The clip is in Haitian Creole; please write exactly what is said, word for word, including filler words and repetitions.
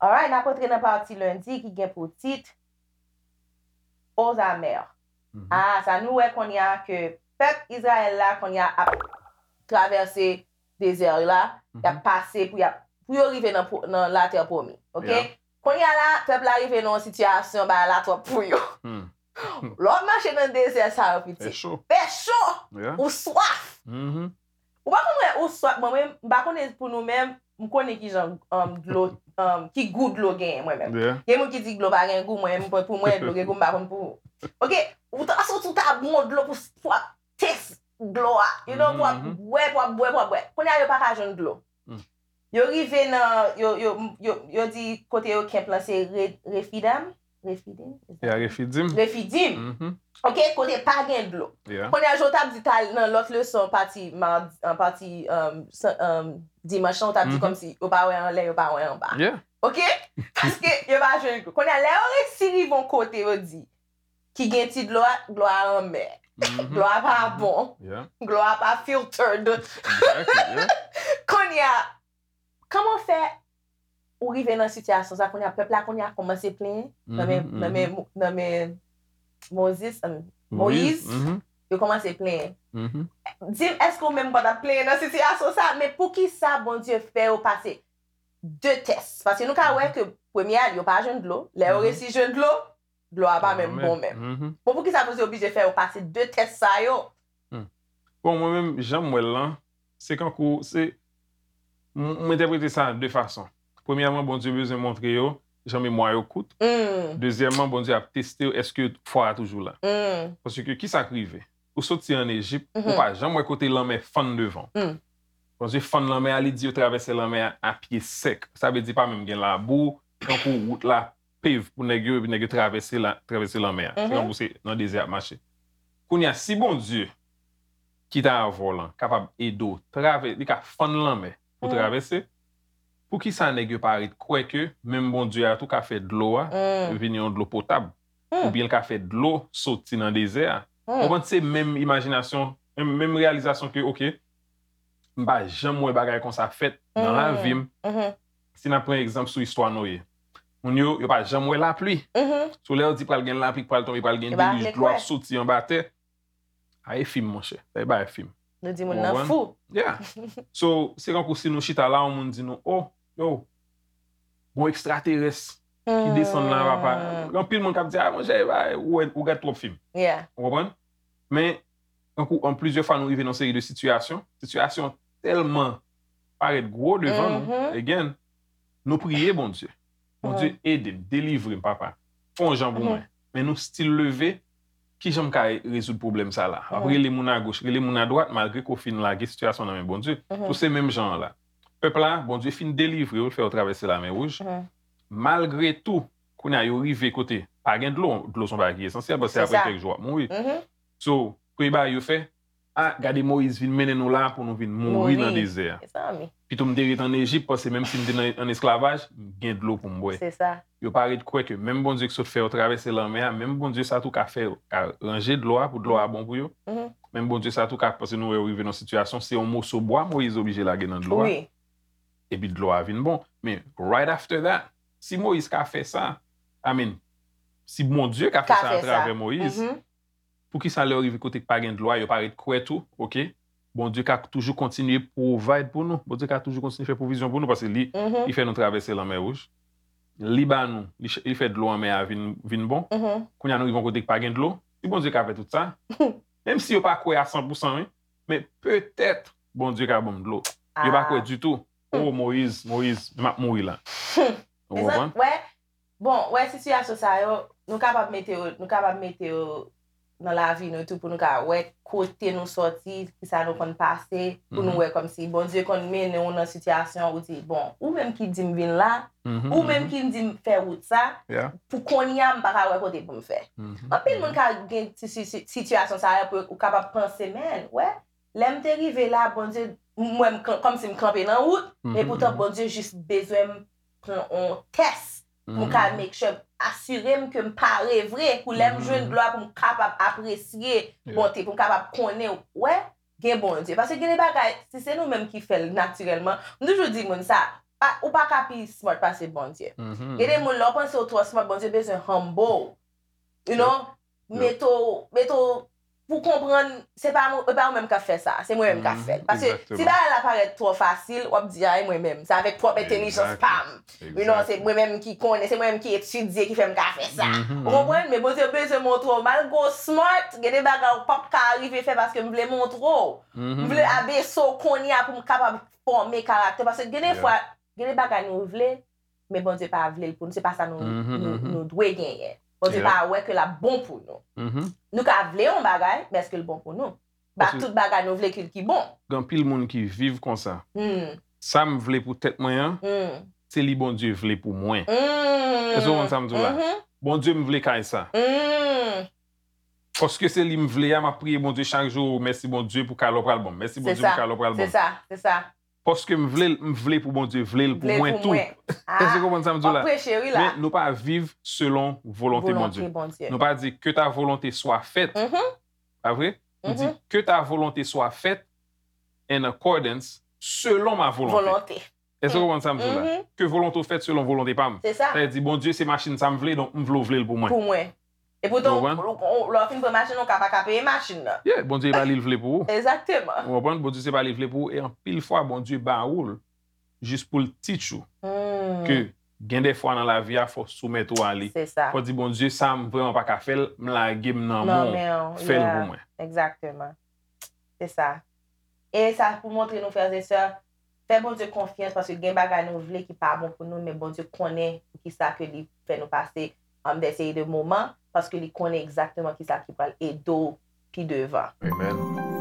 Alright, n ap antre nan pati lendi ki gen pou tit Aux amers. Ah, sa nou wè kounye a ke pèp Izrayèl la kounye a ap travèse dezè la, y ap pase pou y ap, pou yo rive nan, pwo- nan latè pwomi. Oke? Kounye a la, pèp la rive nan yon sitiyasyon, bagay la twòp pou yo. Lè w ap mache nan dezè sa yo, pitit. Fè cho. Fè cho. Ou swaf. Ou pa konn wè ou swaf, mwen menm, m pa konnen pou nou menm, m konnen ki jan um, dlo, um, ki gou dlo genyen mwen menm. Gen moun ki di dlo pa gen gou, mwen menm pou mwen dlo gen gou, m pa konn pou ou. Oke, ou ta soti ou ta bon dlo pou pou ap tès dlo a, you know, pou ap bwè, pou ap bwè, pou ap bwè. Kounye a yo pa ka jwenn dlo. Yo rive nan, yo, yo, yo, yo di kote yo kenp lan se Re- Refidim. Refidim? Is that- Ya Refidim. Refidim. Oke, kote pa gen dlo. Kounye a jan w t ap di tal nan lòt leson, pati madi, an pati um, san- um, dimanch lan, w t ap di kòmsi yo pa wè anlè, yo pa wè anba. Oke? Paske yo pa jwenn dlo. Kounye a lè yo resi rive yon kote yo di ki gen ti dlo a, dlo a anmè. Dlo a pa bon. Dlo a pa filtered. Kounye a, kòman fè ou rive nan sitiyasyon sa kounye a, pèp la kounye a kòmanse plenyen nan men, nan men, nan men Mozis, um, Moyiz, yo kòmanse plenyen. Di m, èske ou menm pa t ap plenyen nan sitiyasyon sa? Men poukisa Bondye fè yo pase de tès? Paske nou ka wè ke premye a, yo pa jwenn dlo. Lè yo resi jwenn dlo, dlo a pa menm bon menm. Bon, poukisa Bondye oblije fè yo pase de tès sa yo? Bon, mwen menm, jan m wè l lan, se kankou, se, m m entèprete sa de fason. Premyèman, Bondye bezwen montre yo jan memwa yo kout. Dezyèmman, Bondye ap teste yo, èske fwa a toujou la. Paske ki sa k rive? Ou soti ann Ejip, ou pa janm wè kote lanmè fann devan w. Bondye fann lanmè a, li di yo travèse lanmè a a pye sèk. Sa vle di pa menm gen labou, tankou wout la pave pou nèg yo, epi nèg yo travèse la, travèse lanmè a. Se tankou se nan dezè y ap mache. Kounye a, si Bondye ki ta avè w lan kapab ede w travè, li ka fann lanmè pou travèse, poukisa nèg yo pa ret kwè ke menm Bondye a tou ka fè dlo a vin yon dlo potab? Oubyen l ka fè dlo soti nan dezè a? Ou konprann, se menm imajinasyon, menm, menm reyalizasyon ke, oke, m pa janm wè bagay konsa fèt nan lavi m. Si n ap pran egzanp sou istwa Noye, moun yo, yo pa janm wè lapli. Sou lè yo di pral gen lapli, pral tonbe, pral gen delij, dlo ap soti anba tè. A e fim, monchè. Sa e bagay fim. Nou di moun nan fou. Yeah. So, se kankou si nou chita la, yon moun di nou, oh, yo, gon ekstraterès ki desann la, papa. Gen anpil moun k ap di, ah, monchè, ou wè, ou gad twòp fim. Ou konprann? Men, tankou an plizyè fwa nou rive nan seri de sitiyasyon, sitiyasyon tèlman parèt gwo devan nou, again, nou priye Bondye. Bondye ede m, delivre m, papa. Fè yon jan pou mwen. Men nou still leve, ki jan m ka rezoud pwoblèm sa la? W ap rele moun agoch, rele moun adwat, malgre ke w fin lage sitiyasyon nan men Bondye. So se menm jan an la. Pèp la, Bondye fin delivre yo, l fè yo travèse Lamè Wouj. Malgre tou, kounye a yo rive kote pa gen dlo, dlo se yon bagay ki esansyèl, paske apre kèk jou w ap mouri. So, premye bagay yo fè, ah, gade Moyiz vin mennen nou la pou nou vin mouri nan dezè a. Pito m te ret ann Ejip, paske menm si m te nan, ann esklavaj, m gen dlo pou m bwè. Yo pa ret kwè ke menm Bondye ki sot fè yo travèse lanmè a, menm Bondye sa tou ka fè, ka ranje dlo a pou dlo a bon pou yo. Menm Bondye sa tou ka, paske nou wè yo rive nan sitiyasyon, se yon moso bwa Moyiz oblije lage nan dlo a. Epi dlo a vin bon. Men right after that, si Moyiz ka fè sa, I mean, si Bondye ka fè sa atravè Moyiz, poukisa lè yo rive kote k pa gen dlo a, yo pa ret kwè tou, oke, Bondye ka toujou kontinye provide pou nou. Bondye ka toujou kontinye fè pwovizyon pou nou, paske li, li fè nou travèse Lanmè Wouj. Li ba nou, li, li fè dlo anmè a vin, vin bon. Kounye a nou rive yon kote k pa gen dlo. Si Bondye ka fè tout sa, menm si yo pa kwè a san pou san, wi, men petèt Bondye ka ban m dlo. Yo pa kwè ditou. Oh, Moyiz, Moyiz, m ap mouri la. Ou konprann? Bon, wè sitiyasyon sa yo, nou kapab mete yo, nou kapab mete yo nan lavi nou tou pou nou ka wè kote nou sòti, kisa nou konn pase, pou nou wè kòmsi Bondye konn mennen w nan sitiyasyon ou di, bon, ou menm ki di m vin la, ou menm ki di m fè wout sa, pou kounye a m pa ka wè kote pou m fè. Anpil moun ka gen ti si- si- sitiyasyon sa yo pou ou kapab panse, men, wè, lè m te rive la, Bondye, m wè m kan- kòmsi m kanpe nan wout, men poutan Bondye jis bezwen m pran yon tès pou m ka make sure asire m ke m pare vre, pou lè m jwenn glwa pou m kapab apresye bonte, pou m kapab konnen, wè, gen Bondye. Paske gen de bagay, si se nou menm ki fè l natirèlman, m toujou di moun sa, pa, ou pa ka pi smart pase Bondye. Gen de moun, lè w panse w twò smart, Bondye bezwen humble. You know? Mete w, mete w pou konprann, se pa mwen, e pa ou menm k ap fè sa, se mwen menm k ap fè l. Paske si bagay la parèt twò fasil, w ap di, a, e mwen menm, se avèk pwòp entèlijans pa m. You know, se mwen menm ki konnen, se mwen menm ki etidye ki fè m ka fè sa. Ou konprann? Men Bondye bezwen montre w, malgre w smart, gen de bagay ou p ap ka rive fè paske m vle montre w. M vle abese w kounye a pou m kapab fòme karaktè. Paske gen de fwa, gen de bagay nou vle, men Bondye pa vle l pou nou. Se pa sa nou, nou, nou dwe genyen. Bondye pa wè ke l ap bon pou nou. Nou ka vle yon bagay, men èske l bon pou nou? Pa tout bagay nou vle ki, ki bon. Gen anpil moun ki viv konsa. Sa m vle pou tèt mwen an, se li Bondye vle pou mwen. Èske w konn sa m di w la? Bondye, m vle kay sa. Paske se li m vle a, m ap priye Bondye chak jou, mèsi Bondye pou kay la w pral ban m. Mèsi Bondye pou kay la w pral ban m. Se sa, se sa. Paske m vle l, m vle pou Bondye vle l pou mwen tou. Èske w konprann sa m di w la? Men nou pa viv selon volonte Bondye. Nou pa di, que ta volonté soit faite. Pa vre? Nou di, que ta volonté soit faite in accordance selon ma volonté. Èske w konprann sa m di w la? Que volonté w fèt selon volonte pa m. Sa vle di, Bondye, se machin sa m vle, donk m vle w vle l pou mwen. Pou mwen. Epoutan, lè w fin pran machin nan, ou ka pa ka peye machin nan. Yeah, Bondye pa li l vle pou ou. Egzakteman. Ou konprann? Bondye se pa li l vle pou ou. E anpil fwa, Bondye ba ou l jis pou l teach ou. Ke gen de fwa nan lavi a, fò w soumèt ou a li. Se sa. Fò w di, Bondye, sa m vrèman pa ka fè l, m lage m nan men w. Fè l pou mwen. Egzakteman. Se sa. E sa pou montre nou, frè e sè, fè Bondye konfyans, paske gen bagay nou vle ki pa bon pou nou, men Bondye konnen poukisa ke li fè nou pase, um, de seri de moman, paske li konnen egzakteman kisa ki pral ede w pi devan. Amen.